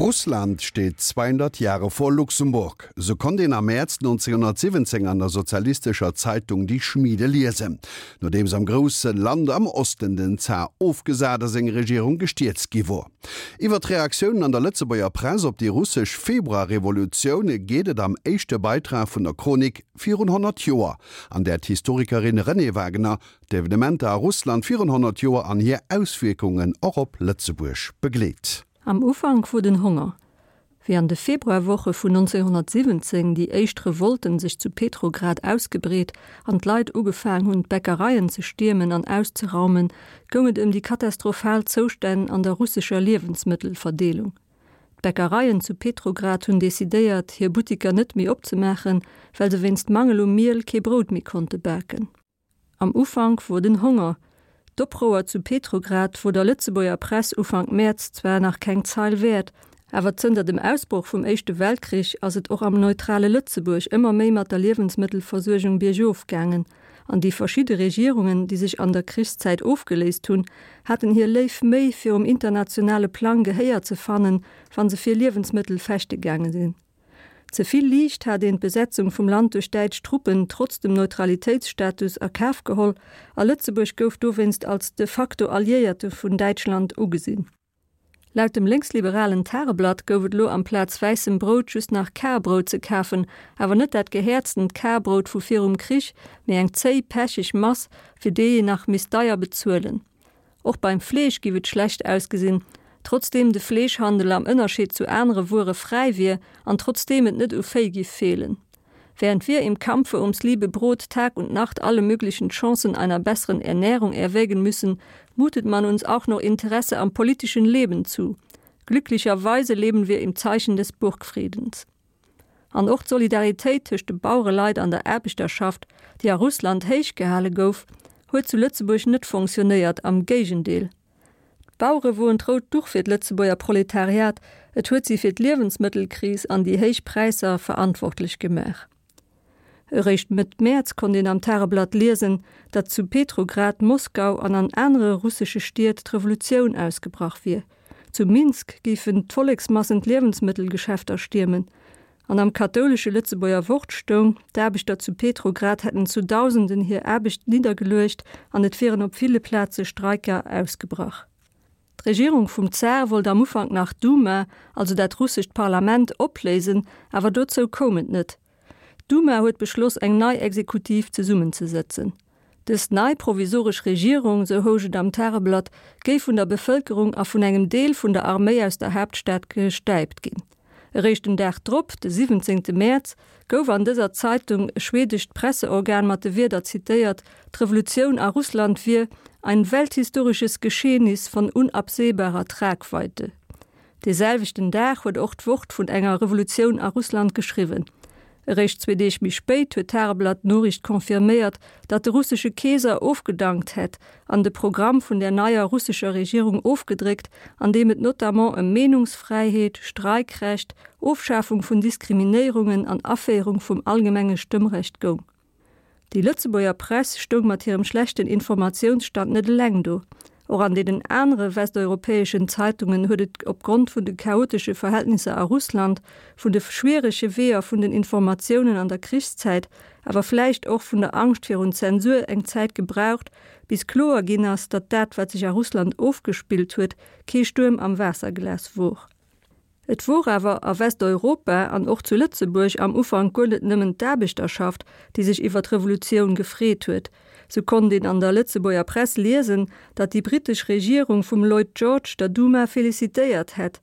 Russland steht 200 Jahre vor Luxemburg. Sou konnt een am Mäerz 1917 an der sozialistescher Zeitung Die Schmiede liesen, nodeems am grousse Land am Osten den Zar ofgesat a seng Regierung gestierzt gi wor. Iwwer d'Reaktiounen an der Lëtzebuerger Press op déi russesch Februarrevolutioun geet et am éischte Beitrag vun der Chronik Virun 100 Joer, an där d'Historikerin Renée Wagener d'Evenementer a Russland virun 100 Joer an hir Auswierkungen och op Lëtzebuerg begleet. Am Ufank wor den Honger. Wéi an de Februarwoche vun 1917 déi éischt Revolten sech zu Petrograd ausgebreet an d'Leit ugefaang hunn d'Bäckereien ze stiermen an auszeraumen, goung et ëm déi katastrophal Zoustänn an der russescher Liewensmëttelverdeelung. D'Bäckereien zu Petrograd hunn decidéiert, hir Buttiker net méi opzemaachen, well se wéinst Mangel u Miel kee Brout méi konnte baken. Am Ufank wor den Honger. D'Oprouer zu Petrograd wor der Lëtzebuerger Press Ufank Mäerz zwar nach keng Zeil wäert, awer zënter dem Ausbroch vum Éischte Weltkrich ass et och am neutrale Lëtzebuerg ëmmer méi mat der Liewensmëttelversuergung biergof gaangen, an déi verschidde Regierungen, déi sech an der Krichszäit ofgeléist hunn, haten hir léif Méi, fir um internationale Plang Gehéier ze fannen, wa se fir Liewensmëttel fechte gaange sinn. Ze vill liicht hat een d'Besetzung vum Land duerch däitsch Truppen trotz dem Neutralitéitsstatus a Kaf geholl a Lëtzebuerg gouf dowéinst als de facto Alliéierte vun Däitschland ugesinn. Laut dem lénksliberalen Tageblatt gouf et elo amplaz wäissem Brout just nach Karbrout ze kafen, awer net dat gehäerztent Karbrout vu virum Krich, mee eng zéi, pecheg Mass, fir déi een nach misst deier bezuelen. Och beim Fleesch giff et schlecht ausgesinn, trotzdeem de Fleeschhandel am Ënnerscheed zu anere Wuere fräi wier an trotzdeem et net u Véi giff feelen. Während wir im Kampfe ums liebe Brot Tag und Nacht alle möglichen Chancen einer besseren Ernährung erwägen müssen, mutet man uns auch noch Interesse am politischen Leben zu. Glücklicherweise leben wir im Zeichen des Burgfriedens. An och d'Solidaritéit tëscht de Bauereleit an der Aarbechterschaft, déi a Russland héich gehale gouf, huet zu Lëtzebuerg net fonctionnéiert, am Géigendeel. D'Bauere woen d'rout Duch fir d'Lëtzebuerger Proletariat, et huet si fir d'Liewensmëttelkris an déi héich Präisser verantwortlech gemaach. Eréischt Mëtt Mäerz konnt een am Tageblatt liesen, datt zu Petrograd, Moskau an an anere russesche Stied d'Revolutioun ausgebrach wier. Zu Minsk géifen d'Volleksmassen d'Liewensmëttelgeschäfter stiermen. An am kathoulesche Lëtzebuerger Wort stoung, d'Aarbechter zu Petrograd hätten zu Dausenden hir Aarbecht niddergeluecht an et wieren op ville Plaze Streiker ausgebrach. D'Regierung vum Zar wollt am Ufank nach d'Duma, also dat russescht Parlament, opléisen, awer dozou koum et net. D'Duma huet beschloss eng nei Exekutiv zesummenzesëtzen. Dës nei provisoresch Regierung, sou housch et am Tageblatt, géif vun der Bevëlkerung a vun engem Deel vun der Arméi aus der Haaptstad gestäipt ginn. Eréischt den Dag drop, de 17. Mäerz, gouf an dëser Zeitung e schwedescht Presseorgan mat de Wierder zitéiert, d'Revolutioun a Russland wier ein welthistorisches Geschehnis von unabsehbarer Tragweite. Dee selwechten Dag huet och d'Wort vun enger Revolutioun a Russland geschriwwen. Eréischt zwee Deeg méi spéit huet d'Tageblatt d'Noriicht confirméiert, datt de russesche Keeser ofgedankt hätt an de Programm vun der neier russescher Regierung ofgedréckt, an deem et notamment ëm Meenungsfräiheet, Streikrecht, Ofschafung vun Diskriminéierungen an Aféierung vum allgemenge Stëmmrecht goung. Déi Lëtzebuerger Press stoung mat hirem schlechten Informatiounsstand net eleng do. Och an deenen anere westeuropäeschen Zeitungen huet et opgrond vun de chaotesche Verhältnisser a Russland, vun de schwierege Weeër vun den Informatiounen an der Krichszäit, awer vläicht och vun der Angscht virun Zensur eng Zäit gebraucht, bis kloer ginn ass, datt dat, wat sech a Russland ofgespillt huet, kee Stuerm am Waasserglas wor. Et wor awer a Westeuropa an och zu Lëtzebuerg am Ufank guer net nëmmen d'Aarbechterschaft, déi sech iwwer d'Revolutioun gefreet huet. Sou konnt een an der Lëtzebuerger Press liesen, datt déi britesch Regierung vum Lloyd George der Duma felicitéiert hätt.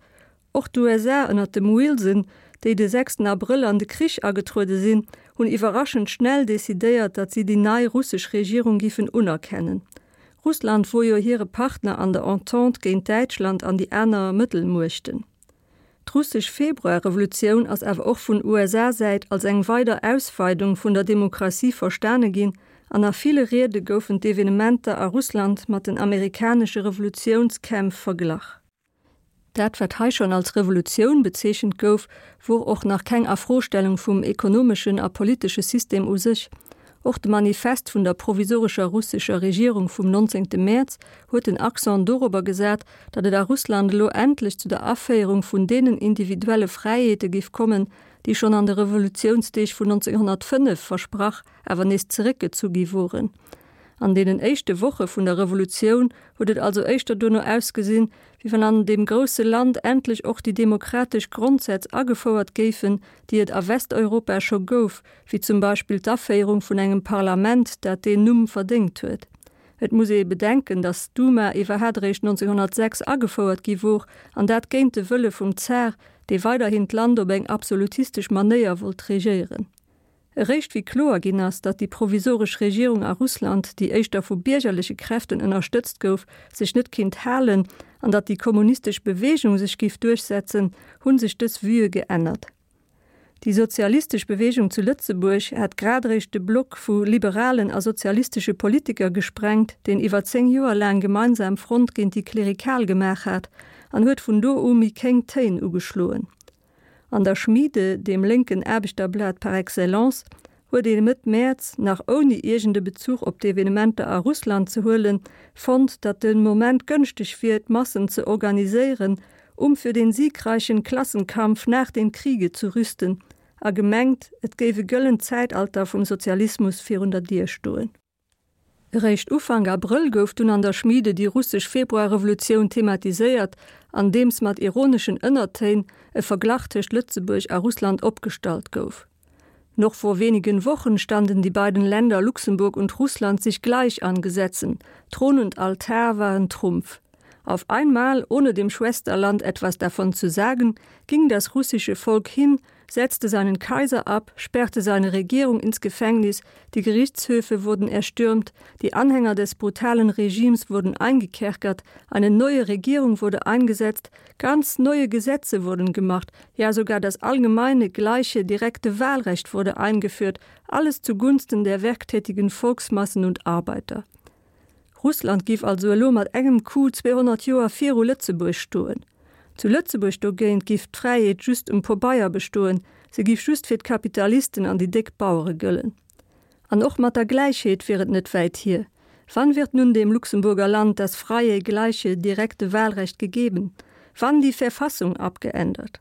Och d'USA ënner dem Wilson, déi de sechsten Abrëll an de Krich agetruede sinn, hunn iwwerraschend schnell decidéiert, datt si déi nei russesch Regierung giffen unerkennen. Russland wor jo hire Partner an der Entente géint Däitschland an déi aner Mëttelmuechten. D'russesch Februarrevolutioun ass awer och vun USA-Säit als eng weider Ausweidung vun der Demokratie verstane ginn an a ville Riede goufen d'Evenementer a Russland mat den amerikanesche Revolutiounskämpf verglach. Dat, wat hei schonn als Revolutioun bezeechent gouf, wor och nach keng Afrostellung vum ekonomeschen a politesche System u sech. Och de Manifest vun der provisorescher russescher Regierung vum 19. Mäerz huet den Accent dorobber gesat, datt et a Russland elo endlech zu der Aféierung vun deenen individuelle Fräiheete giff kommen, déi schonn an de Revolutiounsdeeg vun 1905 versprach, awer nees zeréckgezu gi woren. An deenen éischte Woche vun der Revolutioun huet et also éischter duerno ausgesinn, wéi wann an deem grousse Land endlech och déi demokratesch Grondsätz agefouert géifen, déi et a Westeuropa scho gouf, wéi zum Beispill d'Aféierung vun engem Parlament, dat deen Numm verdéngt huet. Et muss ee bedenken, datt d'Duma iwwerhat eréischt 1906 agefouert gi wor, an dat géint de Wëlle vum Zar, dee weiderhin d'Land op eng absolutistesch Manéier wollt regéieren. Eréischt wéi kloer ginn ass, datt déi provisoresch Regierung a Russland, déi éischter vu biergerleche Kräften ënnerstëtzt gouf, sech net kinnt halen an datt déi kommunistesch Beweegung sech giff duerchsetzen, hu sech dës Vuë geännert. Déi sozialistesch Beweegung zu Lëtzebuerg hat grad eréischt de Block vu liberalen a sozialistesche Politiker gesprengt, deen iwwer 10 Joer laang gemeinsam Front géint déi Klerikal gemaach hat, an huet vun do u méi kéng Téin ugeschloen. An der Schmiede, deem lénken Aarbechterblat par excellence, huet ee Mëtt Mäerz, nach ouni iergend e Bezuch op d'Evenementer a Russland ze huelen, fonnt, datt de Moment gënschteg wier, d'Massen ze organiséieren, um für den siegreichen Klassenkampf nach dem Kriege zu rüsten, a gemengt, et géif e gëllent Zäitalter vum Sozialismus virun der Dier stoen. Eréischt Ufank Abrëll gouf dunn an der Schmiede déi russesch Februarrevolutioun thematiséiert, andeems mat ironeschen Ënnertéin e Verglach tëscht Lëtzebuerg a Russland opgestallt gouf. Noch vor wenigen Wochen standen die beiden Länder Luxemburg und Russland sich gleich an Gesetzen, Thron und Altar waren Trumpf. Auf einmal, ohne dem Schwesterland etwas davon zu sagen, ging das russische Volk hin, setzte seinen Kaiser ab, sperrte seine Regierung ins Gefängnis, die Gerichtshöfe wurden erstürmt, die Anhänger des brutalen Regimes wurden eingekerkert, eine neue Regierung wurde eingesetzt, ganz neue Gesetze wurden gemacht, ja sogar das allgemeine, gleiche, direkte Wahlrecht wurde eingeführt, alles zugunsten der werktätigen Volksmassen und Arbeiter. Russland giff also elo mat engem Coup 200 Joer viru Lëtzebuerg stoen. Zu Lëtzebuerg dogéint giff d'Fräiheet just um Pobeier bestoen, se giff just fir d'Kapitalisten an déi déck Bauere gëllen. An och mat der Gläichheet wier et net wäit hier. Wann wird nun dem Luxemburger Land das freie, gleiche, direkte Wahlrecht gegeben? Wann die Verfassung abgeändert?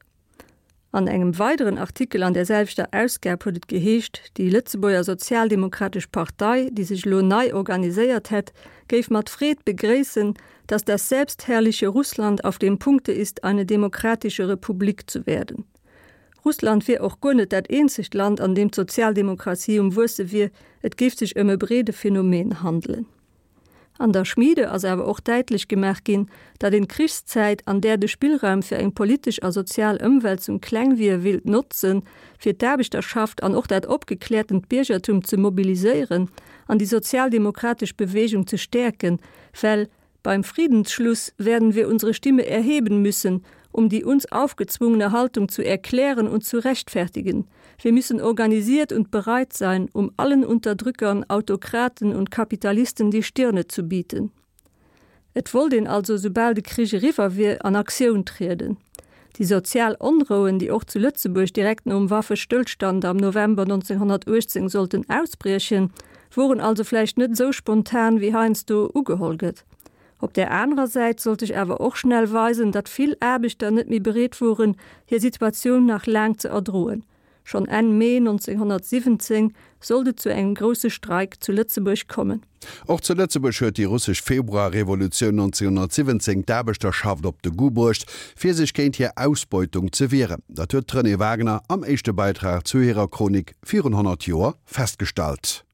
An engem weideren Artikel an där selwechter Ausgab huet et geheescht, déi Lëtzebuerger Sozialdemokratesch Partei, déi sech elo nei organiséiert hätt, géif mat Freed begréissen, dass das selbstherrliche Russland auf dem Punkte ist, eine demokratische Republik zu werden. Russland wier och guer net dat eenzegt Land, an deem d'Sozialdemokratie um Wuesse wier, et géif sech ëm e breede Phänomen handelen. An der Schmiede ass awer och däitlech gemaach ginn, datt een d'Krichszäit, an där de Spillraum fir eng politesch a sozial Ëmwälzung kleng wier, willt notzen, fir d'Aarbechterschaft an och dat opgekläertent Biergertum ze mobiliséieren an déi sozialdemokratesch Bewegung ze stäerken, well beim Friedensschluss werden wir unsere Stimme erheben müssen, um die uns aufgezwungene Haltung zu erklären und zu rechtfertigen. Wir müssen organisiert und bereit sein, um allen Unterdrückern, Autokraten und Kapitalisten die Stirne zu bieten. Et wollt een also, soubal de Krich eriwwer wier, an Aktioun trieden. Déi sozial Onrouen, déi och zu Lëtzebuerg direkt nom Waffestëllstand am November 1918 sollten ausbriechen, woren also vläicht net esou spontan, wéi heiansdo ugeholl gëtt. Op där anerer Säit sollt sech awer och schnell weisen, datt vill Aarbechter net méi bereet woren, hir Situatioun nach laang ze erdroen. Schonn Enn Mee 1917 sollt et zu engem grousse Streik zu Lëtzebuerg kommen. Och zu Lëtzebuerg huet déi russesch Februarrevolutioun 1917 d'Aarbechterschaft op de Goût bruecht, fir sech géint hir Ausbeutung ze wieren. Dat huet d'Renée Wagner am éischte Beitrag zu hirer Chronik virun 100 Joer festgestallt.